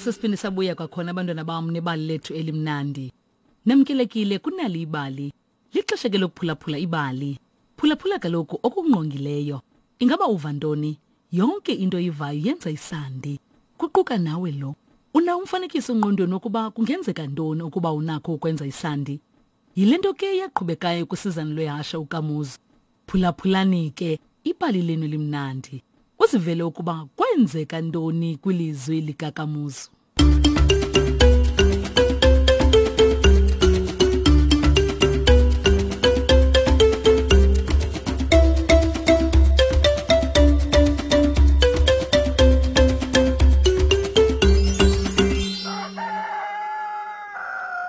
Sesiphinde sabuya kwakhona abantwana bam nebali lethu elimnandi. Namkelekile kunali ibali. Lixesha ke lokuphulaphula ibali. Phulaphula kaloku okungqongileyo. Ingaba uva ntoni? Yonke into oyivayo yenza isandi. Kuquka nawe lo. Unawo umfanekiso engqondweni wokuba kungenzeka ntoni ukuba unakho ukwenza isandi? Yile nto ke yaqhubekayo kwisizana lwehashe uKamuzu. Phulaphulani ke ibali lenu elimnandi. Uzivele ukuba kwenzeka ntoni kwilizwi likaKamuzu.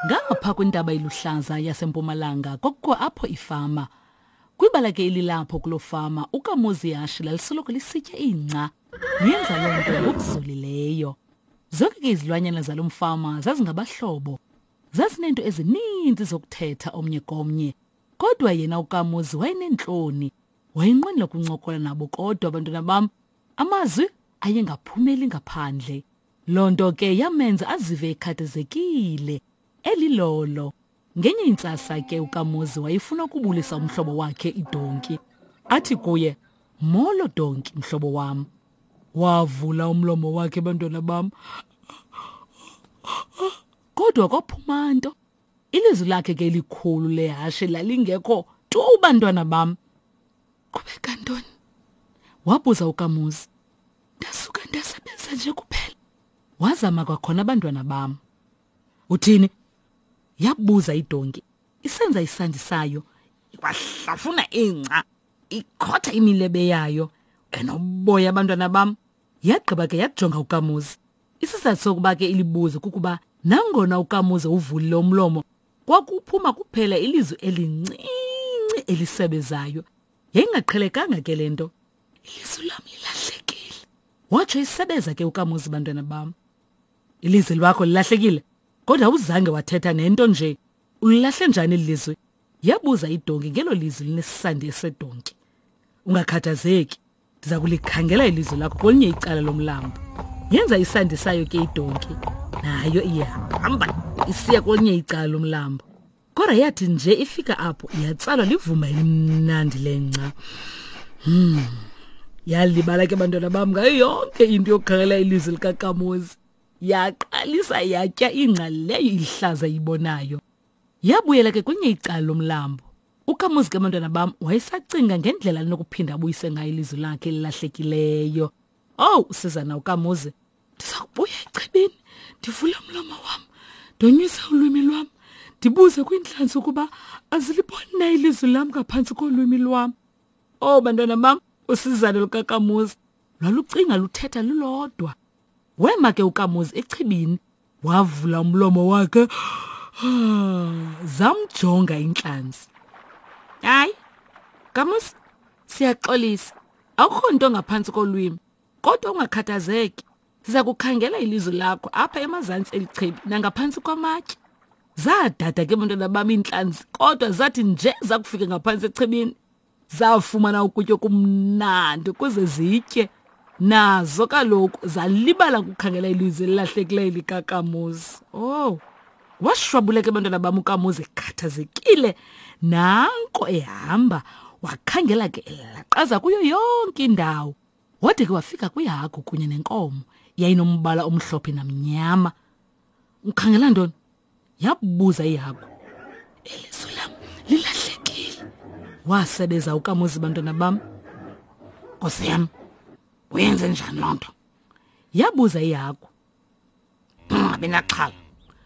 Ngapha kwintaba iluhlaza yasempumalanga kwakukho apho ifama. Kwibala ke elilapho kuloo fama uKamuzi ihashe lalisoloko lisitya ingca. Yenza loo nto ngokuzolileyo. Zonke ke izilwanyana zalo mfama zazingabahlobo. Zazineento ezininzi zokuthetha omnye komnye. Kodwa yena uKamuzi wayeneentloni. Wayenqwenela ukuncokola nabo kodwa abantwana bam amazwi ayengaphumeli ngaphandle. Loo nto ke yamenza azive ekhathazekile, elilolo. Ngenye intsasa ke uKamuzi wayefuna ukubulisa umhlobo wakhe idonki. Athi kuye, "Molo donki, mhlobo wam." Wavula umlomo wakhe bantwana bam. Kodwa kwaphuma nto. Ilizwi lakhe ke elikhulu lehashe lalingekho tu bantwana bam. Qhubeka ntoni? Wabuza uKamuzi. Ndasuka ndasebenza nje kuphela. Wazama kwakhona abantwana bam. Uthini? Yabuza idonki isenza isandi sayo ikwahlafuna ingca ikhotha imilebe yayo enoboya abantwana bam. Yagqiba ke yajonga uKamuzi. Isizathu sokuba ke ilibuze kukuba nangona uKamuzi uvulile umlomo kwakuphuma kuphela ilizwi elincinci elisebezayo. Yayingaqhelekanga ke le nto. Ilizwi lam lilahlekile, watsho isebeza ke uKamuzi bantwana bam. Ilizwi lwakho lilahlekile, kodwa awuzange wathetha nento nje. Ulilahle njani eli lizwi? Yabuza idonki ngelo lizwi linesandi esedonki. Ungakhathazeki, ndiza kulikhangela ilizwi lakho kwelinye icala lomlambo. Yenza isandi sayo ke idonki, nayo iyahamba isiya kwelinye icala lomlambo. Kodwa yathi nje ifika apho yatsalwa livumba elimnandi lengca. Hmm. Yalibala ke bantwana bam ngayo yonke into yokukhangela ilizwi likakamozi. Yaqalisa yatya ingca leyo ilihlaza ibonayo. Yabuyela ke kwenye icala lomlambo. UKamuzi ke bantwana bam wayesacinga ngendlela anokuphinda abuyise ngayo ilizwi lakhe elilahlekileyo. Owu, usizana uKamuzi Ndiza kubuya echibini ndivule umlomo wam ndonyuse ulwimi lwam ndibuze kwiintlanzi ukuba aziliboni na ilizwi lam ngaphantsi kolwimi lwam. Oh bantwana bam, usizane lukakamuzi lwalucinga luthetha lulodwa. Wema ke uKamuzi echibini wavula umlomo wakhe zamjonga intlanzi. Hayi, Kamuzi, siyaxolisa. Akukho nto ngaphantsi kolwimi. Kodwa ungakhathazeki, siza kukhangela ilizwi lakho apha emazantsi elichibi nangaphantsi kwamatye. Zadada ke bantwana bam iintlanzi, kodwa zathi nje zakufika ngaphantsi echibini, zafumana ukutya okumnandi ukuze zitye. Nazo kaloku zalibala ukukhangela ilizwi elilahlekileyo likakamuzi. Oh, washwabuleka abantwana bam ukamuzi ekhathazekile. Nanko ehamba, wakhangela ke elaqaza kuyo yonke indawo. Wade ke wafika kwihagu kunye nenkomo yayinombala omhlophe namnyama. Ukhangela ntoni? Yabuza ihagu. Ilizwi lam lilahlekile. Wasebeza uKamuzi bantwana bam. Nkosi yam, uyenze njani loo nto? Yabuza ihagu. Ungabi naxhala,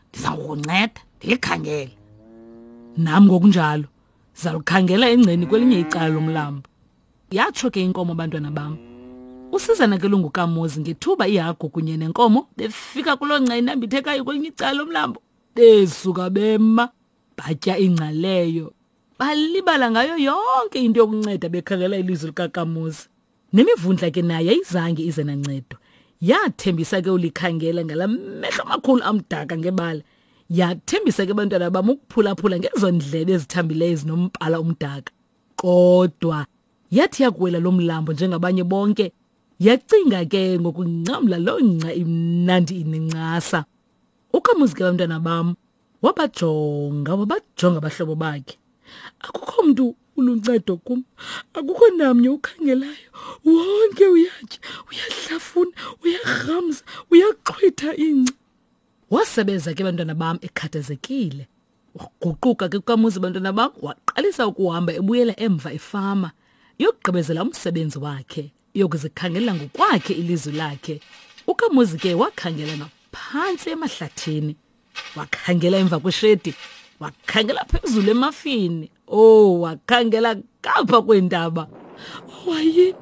ndiza kukunceda ndilikhangele. Nam ngokunjalo, ndizalukhangela engceni kwelinye icala lomlambo. Yatsho ke inkomo bantwana bam. Usizana ke lungukamuzi ngethuba ihagu kunye nenkomo befika kuloo ngca inambithekayo kwelinye icala lomlambo. Besuka bema batya ingca leyo. Balibala ngayo yonke into yokunceda bekhangela ilizwi likakamuzi. Nemivundla ke nayo ayizange ize nancedo. Yathembisa ke ulikhangela ngala mehlo amakhulu amdaka ngebala. Yathembisa ke bantwana bam ukuphulaphula ngezo ndlebe ezithambileyo ezinombala omdaka. Kodwa yathi yakuwela lo mlambo njengabanye bonke, Yacinga ke ngokungcamla loo ngca imnandi inencasa. Ukamuzi ke bantwana bam wabajonga wabajonga abahlobo bakhe. Akukho mntu uluncedo kum, akukho namnye ukhangelayo. Wonke uyatya, uyahlafuna, uyarhamza, uyaxhwitha ingca. Wasebeza ke bantwana bam ekhathazekile. Waguquka ke kukamuzi bantwana bam waqalisa ukuhamba ebuyela emva efama yokugqibezela umsebenzi wakhe yokuzikhangela ngokwakhe ilizwi lakhe. Ukamuzi ke wakhangela ngaphantsi emahlathini, wakhangela emva kweshedi, wakhangela phezulu emafini. Oh, wakhangela ngapha kweentaba. Oh, hayini,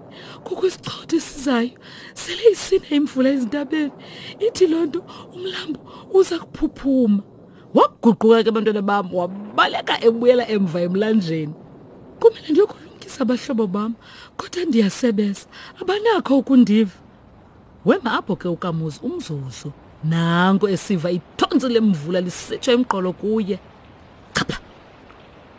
kukho isichotho esizayo. Sele isina imvula ezintabeni. Ithi loo nto umlambo uza kuphuphuma. Waguquka ke bantwana bam, wabaleka ebuyela emva emlanjeni. Kumele ndiyokulumkisa abahlobo bam, kodwa ndiyasebeza, abanakho ukundiva. Wema apho ke uKamuzi umzuzu. Nanko esiva ithontsi lemvula lisitsho emqolo kuye. Chapha!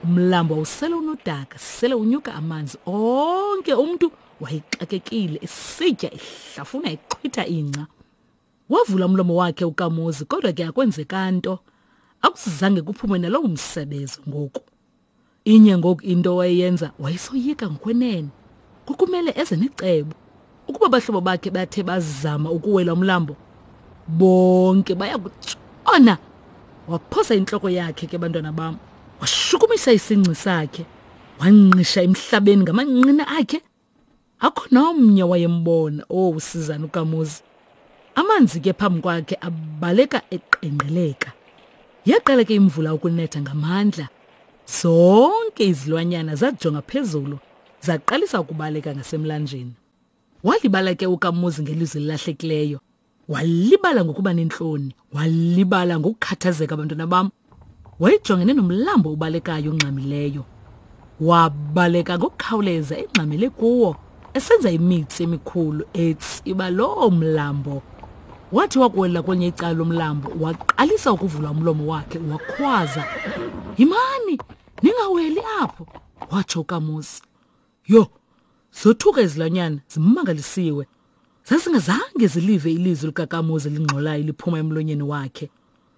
Umlambo wawusele unodaka, sele unyuka amanzi onke umntu wayexakekile esitya ehlafuna exhwitha ingca. Wavula umlomo wakhe uKamuzi kodwa ke akwenzeka nto. Akuzange kuphume nalowo msebezo ngoku. Inye ngoku into wayeyenza wayesoyika ngokwenene. Kwakumele eze necebo. Ukuba abahlobo bakhe bathe bazama ukuwela umlambo, bonke baya kutshona. Waphosa intloko yakhe ke bantwana bam. Washukumisa isingci sakhe. Wanqisha emhlabeni ngamanqina akhe. Akho nomnye wayembona. Oh, usizana uKamuzi. Amanzi ke phambi kwakhe abaleka eqengqeleka. Yaqala ke imvula ukunetha ngamandla. Zonke izilwanyana zajonga phezulu, zaqalisa ukubaleka ngasemlanjeni. Walibala ke uKamuzi ngelizwi elilahlekileyo. Walibala ngokuba nentloni, walibala ngokukhathazeka bantwana bam. Wayejongene nomlambo obalekayo ongxamileyo. Wabaleka ngokukhawuleza engxamele kuwo, esenza imitsi emikhulu etsiba loo mlambo. Wathi wakuwela kwelinye icala lomlambo, waqalisa ukuvula umlomo wakhe wakhwaza, "Yimani, ningaweli apho!" watsho uKamuzi. Yho, zothuka izilwanyana zimangalisiwe. Zazingazange zilive ilizwi likaKamuzi elingxolayo liphuma emlonyeni wakhe.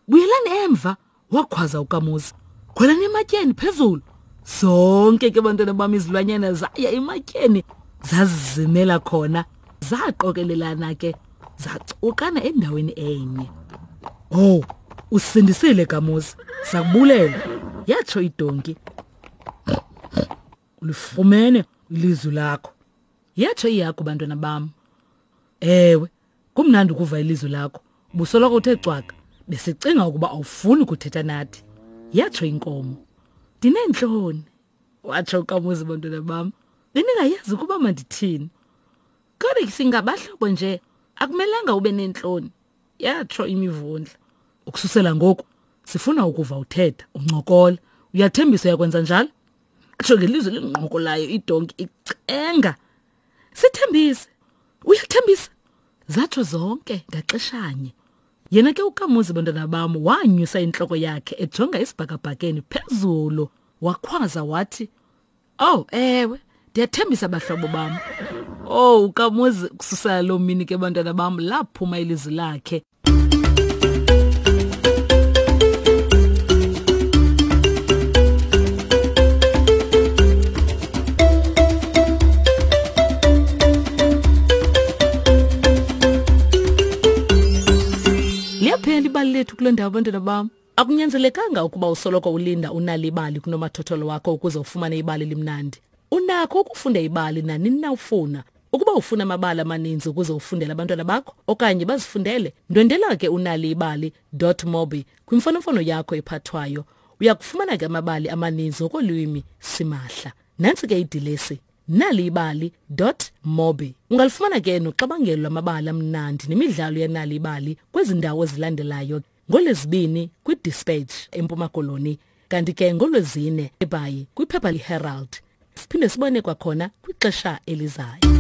Buyelani emva, wakhwaza uKamuzi. Khwelani ematyeni phezulu. Zonke ke bantwana bam izilwanyana zaya ematyeni zazizimela khona, zaqokelelana ke zacukana endaweni enye. Oh, usindisile Kamuzi, sakubulela, yatsho idonki. Ulifumene ilizwi lakho. Yatsho ihagu bantwana bam. Ewe, kumnandi ukuva ilizwi lakho. Ubusoloko uthe cwaka. Besicinga ukuba awufuni kuthetha nathi. Yatsho inkomo. Ndineentloni, watsho uKamuzi bantwana bam. Bendingayazi ukuba mandithini. Kodwa singabahlobo nje, akumelanga ube neentloni, yatsho imivundla. Ukususela ngoku, sifuna ukuva uthetha, uncokola. Uyathembisa uyakwenza njalo? Atsho ngelizwi elingqokolayo idonki icenga. Sithembise. Uyathembisa? Zatsho zonke ngaxeshanye. Yena ke uKamuzi bantwana bam wanyusa intloko yakhe ejonga esibhakabhakeni phezulu wakhwaza wathi, "Oh, ewe, ndiyathembisa bahlobo bam." Oh, uKamuzi kususela loo mini ke bantwana bam laphuma ilizwi lakhe. Liyaphela ibali lethu kule ndawo bantwana bam. Akunyanzelekanga ukuba usoloko ulinda unalibali kunomathotholo wakho ukuze ufumane ibali elimnandi. Unakho ukufunda ibali nanini na ufuna. Ukuba ufuna amabali amaninzi ukuze ufundele abantwana bakho okanye bazifundele, ndwendela ke unaliibali.mobi kwimfonomfono yakho ephathwayo. Uya kufumana ke amabali amaninzi ngokolwimi simahla. Nantsi ke idilesi naliibali.mobi. Ungalifumana ke noxabangelo lwamabali amnandi nemidlalo yenalibali kwezi ndawo zilandelayo ngoLwezibini kwiDispatch eMpuma Koloni kanti ke ngoLwezine eBhayi kwiphepha iHerald. Siphinde sibone kwakhona kwixesha elizayo.